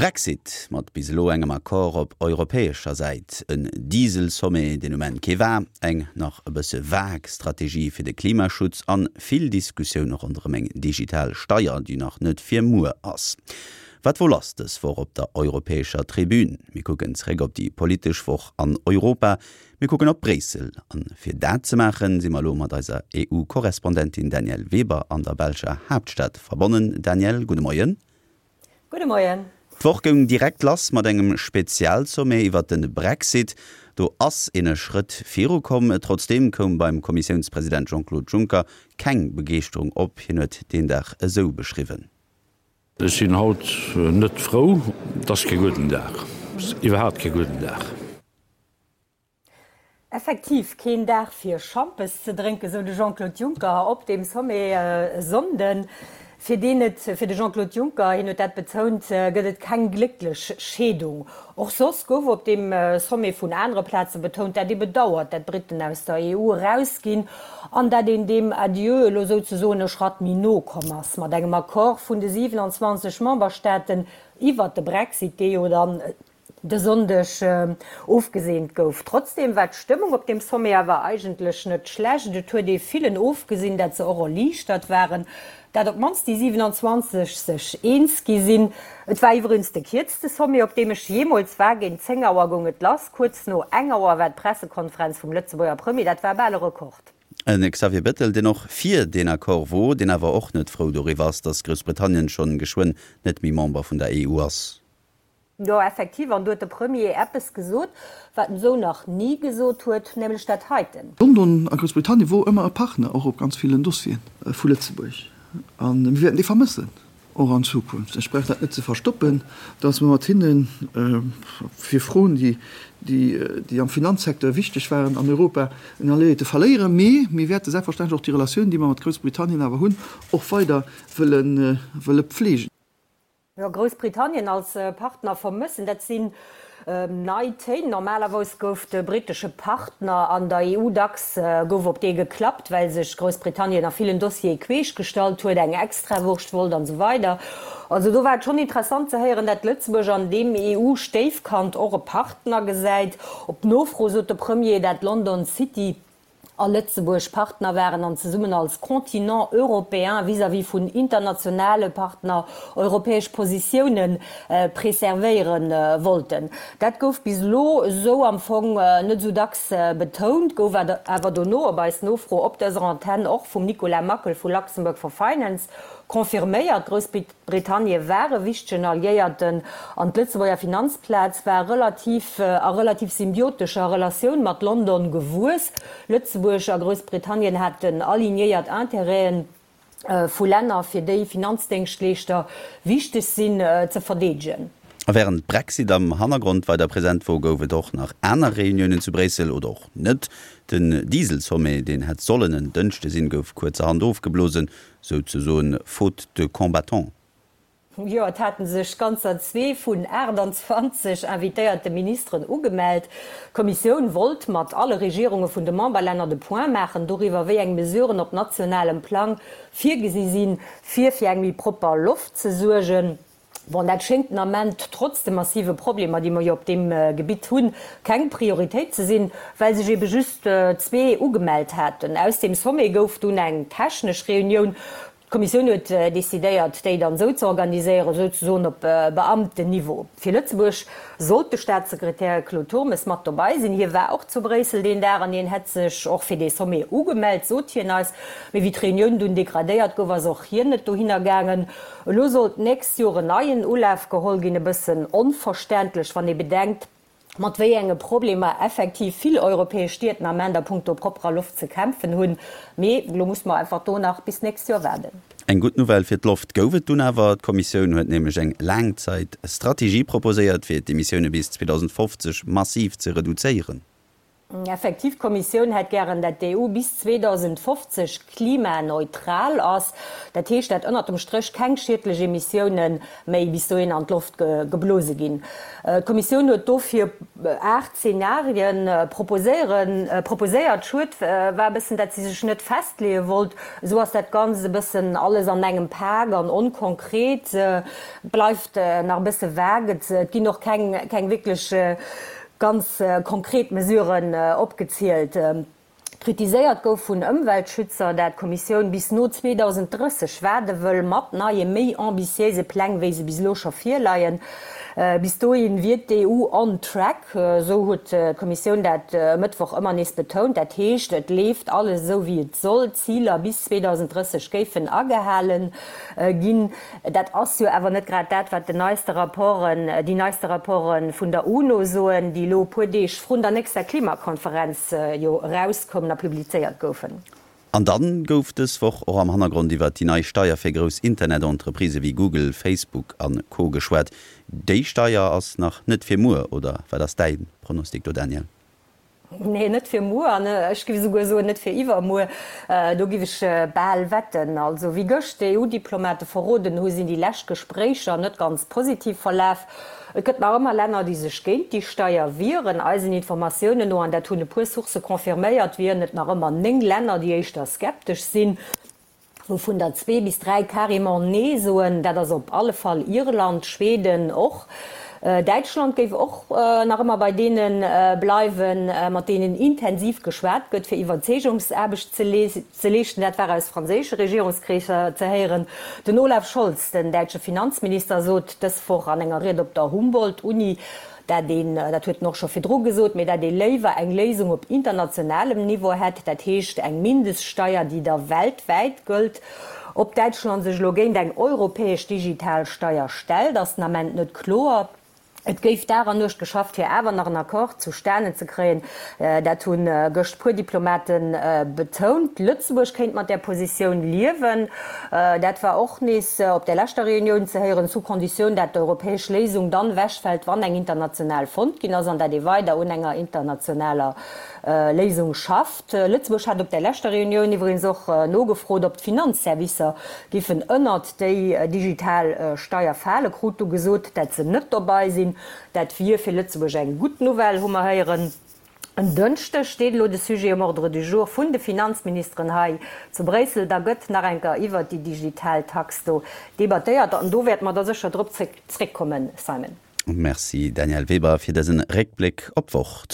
Brexit mat bis elo engem Accord op europäescher Säit, en Diesel-Sommet, deen um Enn kee war, eng nach e bësse vag Strategie fir de Klimaschutz an vill Diskussioune ronderëm eng digital Steier, déi nach net fir muer ass. Wat wor lass dës Woch op der europäescher Tribün? Mir kucken zeréck op déi politesch Woch an Europa. Mir kucken op Bréissel. An fir dat ze maachen, si mer elo mat eiser EU-Korrespondentin Danièle Weber an der belscher Haaptstad verbonnen. Danièle, gudde Moien. Gudde Moien. D'Woch goung direkt lass mat engem Spezialsommet iwwert de Brexit. Do ass een e Schrëtt viru komm. Trotzdeem koum beim Kommissiounspresident Jean-Claude Juncker keng Begeeschterung op. Hien huet deen Dag esou beschriwwen. Ech sinn haut net frou. Et ass kee gudden Dag, iwwerhaapt kee gudden Dag. Effektiv keen Dag fir Schampes ze drénken, sou de Jean-Claude Juncker op deem Sommet e Sonnden. Fir deen et, fir de Jean-Claude Juncker, hien huet dat betount, gëtt et keng glécklech Scheedung. Och soss gouf op deem Sommet vun anere Plaze betount, dat ee bedauert, dat d'Briten aus der EU erausginn an dat een deem Adieu elo souzesoen e Schratt méi no komm ass mat engem Accord vun de 27 Memberstaaten iwwert de Brexit, dee jo dann de Sonndeg ofgeseent gouf. Trotzdeem war d'Stëmmung op deem Sommet awer eigentlech net schlecht. Et huet ee villen ofgesinn, dat se och erliichtert waren, dat op d'mannst déi 27 sech eens gi sinn. Et war iwwregens de kierzte Sommet, op deem ech jeemools war. Géint 10 Auer goung et lass, kuerz no eng Auer war d'Pressekonferenz vum Lëtzebuerger Premier. Dat war bal e Rekord. E Xavier Bettel, deen och fir deen Accord wor, deen awer och net frou doriwwer ass, datt Groussbritannien schonn geschwënn net méi Member vun der EU ass. Jo, effektiv, an do huet de Premier eppes gesot, wat en esou nach ni gesot huet, nämlech dat heiten. London a Groussbritannien wor ëmmer e Partner, och op ganz villen Dossieren vu Lëtzebuerg. A mir wäerten dee vermëssen, och an Zukunft. Ech brauch dat net ze verstoppen, datt mer mat hinne fir Froen, déi am Finanzsecteur wichteg waren an Europa, en Alliéierte verléieren. Mee mir wäerte selbstverständlech och déi Relatioun, déi mer mat Groussbritannien awer hunn, och weider wëlle pflegen. Jo, Groussbritannien als Partner vermëssen, dat sinn nei Téin. Normalerweis gouf de brittesche Partner an der EU dacks gouf op dee geklappt, well sech Groussbritannien a villen Dossiere queesch gestallt huet, eng Extrawurscht wollt an esou weider. Also do war et schonn interessant ze héieren, dat Lëtzebuerg an deem EU-Stéifkand och e Partner gesäit. Op Nofro sot de Premier, dat London City a Lëtzebuerg Partner waren an zesummen als Continent européen vis-à-vis vun internationale Partner europäesch Positioune preservéiere wollten. Dat gouf bis elo esou am Fong net esou dacks betount, gouf awer dono op eis Nofro op dëser Antenn och vum Nicolas Mackel vu Luxembourg for Finance confirméiert. Groussbritannie war e wichtegen Alliéierten an d'Lëtzebuerger Finanzplaz war relativ a relativ symbiotescher Relatioun mat London gewuess. Lëtzebuerg a Groussbritannien haten alignéiert Intérêten vu Länner, fir déi Finanzdéngschtleeschter wichteg sinn, ze verdeedegen. A wärend Brexit am Hannergrond weider present wor, gouf et och nach aner Reuniounen zu Bréissel, oder och net. Den Diesel-Sommet, deen hätt sollen en Dënschde sinn, gouf kuerzerhand ofgeblosen. Souzesoen faute de combattants. Jo, et haten sech ganzer zwee vun 28 invitéierte Ministeren ugemellt. D'Kommissioun wollt mat alle Regierunge vun de Memberlänner de Point maachen doriwwer, wéi eng Mesuren op nationalem Plang virgesi sinn, fir fir eng méi propper Loft ze suergen. Bon, dat schéngt den Ament, trotz de massive Problemer, déi mer jo op deem Gebitt hunn, keng Prioritéit ze sinn, well sech ebe just zwee ugemellt haten. Aus deem Sommet gouf dunn eng technesch Reunioun. D'Kommissioun huet decidéiert, déi dann esou ze organiséieren, souzesoen op Beamtenniveau. Fir Lëtzebuerg sollt de Staatssekretär Claude Turmes mat dobei sinn. Hie war och zu Bréissel deen Dag an hien hätt sech och fir dee Sommet ugemellt, sot hien eis. Mee wéi d'Reunioun dunn degradéiert gouf, ass och hien net dohinner gaangen. Elo soll d'nächst Joer en neien Ulaf geholl ginn. E bëssen onverständlech, wann ee bedenkt, mat wéi enge Problemer effektiv vill europäesch Stied den Ament a punkto propperer Loft ze kämpfen hunn. Mee elo muss mer einfach do nach bis d'nächst Joer waarden. Eng gutt Nouvelle fir d'Loft gouf et dunn awer. D'Kommissioun huet nämlech eng Laangzäit-Strategie proposéiert, fir d'Emissioune bis 2050 massiv ze reduzéieren. Effektiv, d'Kommissioun hätt gären, dat d'EU bis 2050 klimaneutral ass. Dat heescht, dat ënnert dem Stréch keng schiedlech Emissioune méi bis dohin an d'Loft geblose ginn. D'Kommissioun huet dofir 8 Zenarien proposéiert. Schued war e bëssen, dat si sech net festleeë wollt. Esou ass dat Ganzt e bëssen alles an engem Pak an onkonkret. Et bleift nach e bësse vague. Et ginn och keng wierklech Ganz konkret Mesuren opgezielt. Kritiséiert gouf vun Ëmweltschützer, dat d'Kommissioun bis no 2030 waarde wëll mat neie méi ambitiéise Pläng, wéi se bis elo scho virleien. Bis dohi wier d'EU on track, esou huet d'Kommissioun dat e Mëttwoch ëmmer nees betount. Dat heescht, et leeft alles esou wéi et soll, d'Ziler bis 2030 géifen agehalen ginn. Dat ass jo awer net grad dat, wat den neiste Rapporten, déi neiste Rapporte vun der UNO soen, déi elo e puer Deeg vrun der nächster Klimakonferenz jo erauskoumen a publizéiert goufen. An dann gouf dës Woch och am Hannergrond iwwert déi nei Steier fir grouss Internet-Entreprisë wéi Google, Facebook a Co. Geschwat. Déi Steier ass nach net fir muer, oder wat ass däi Pronostic do, Daniel? Nee, net fir muer an ech giff esouguer soen, net fir iwwermuer. Do giff ech bal wetten. Also wéi gëscht d'EU-Diplomate verroden hu, sinn déi lescht Gespréicher net ganz positiv verlaf. Et gëtt nach ëmmer Länner, déi sech géint déi Steier wieren. Eisen Informatiounen no, an dat hunn e puer Sourcë confirméiert, wieren et nach ëmmer 9 Länner, déi éischter skeptesch sinn. Wouvun der zwee bis dräi carrément Nee soen. Dat ass op alle Fall Irland, Schweden och. Däitschland géif och nach ëmmer bei deene bleiwen, mat deenen intensiv geschwat gëtt, fir Iwwerzeegungsaarbecht ze leeschten. Dat war aus franséische Regierungskreesser ze héieren. Den Olaf Scholz, den däitsche Finanzminister, sot dës Woch an enger Ried op der Humboldt-Uni, Dat een, dat huet en och scho virdru gesot, mee dat ee léiwer eng Léisung op internationalem Niveau hätt, dat heescht eng Mindeststeier, déi da weltwäit gëllt. Ob Däitschland sech elo géint eng europäesch digital Steier stellt, ass den Ament net kloer. Et géif Dag an Nuecht geschafft, fir awer nach en Accord zustanen ze kréien. Dat hu gëscht puer Diplomate betount. Lëtzebuerg kéint mat där Positioun liewen. Dat war och nees op där leschter Reunioun ze héieren, sous condition dat d'europäesch Léisung dann ewechfält, wann eng international fonnt ginn ass an dat ee weider un enger internationaler Léisung schafft. Lëtzebuerg hat op där leschter Reunioun iwwregens och nogefrot, ob d'Finanzservicer giffen ënnert déi digital Steier falen, krut du gesot, dat se net dobei sinn. Dat wier fir Lëtzebuerg eng gutt Nouvelle, hu mer héieren. En Dënschdeg steet elo de Sujet um Ordre du jour vun de Finanzministeren hei zu Bréissel. Da gëtt nach eng Kéier iwwert déi digital Tax do debattéiert an do wäerte mer da sécher drop zréckkommen, Simon. Merci Danièle Weber fir dësen Réckbléck op d'Woch.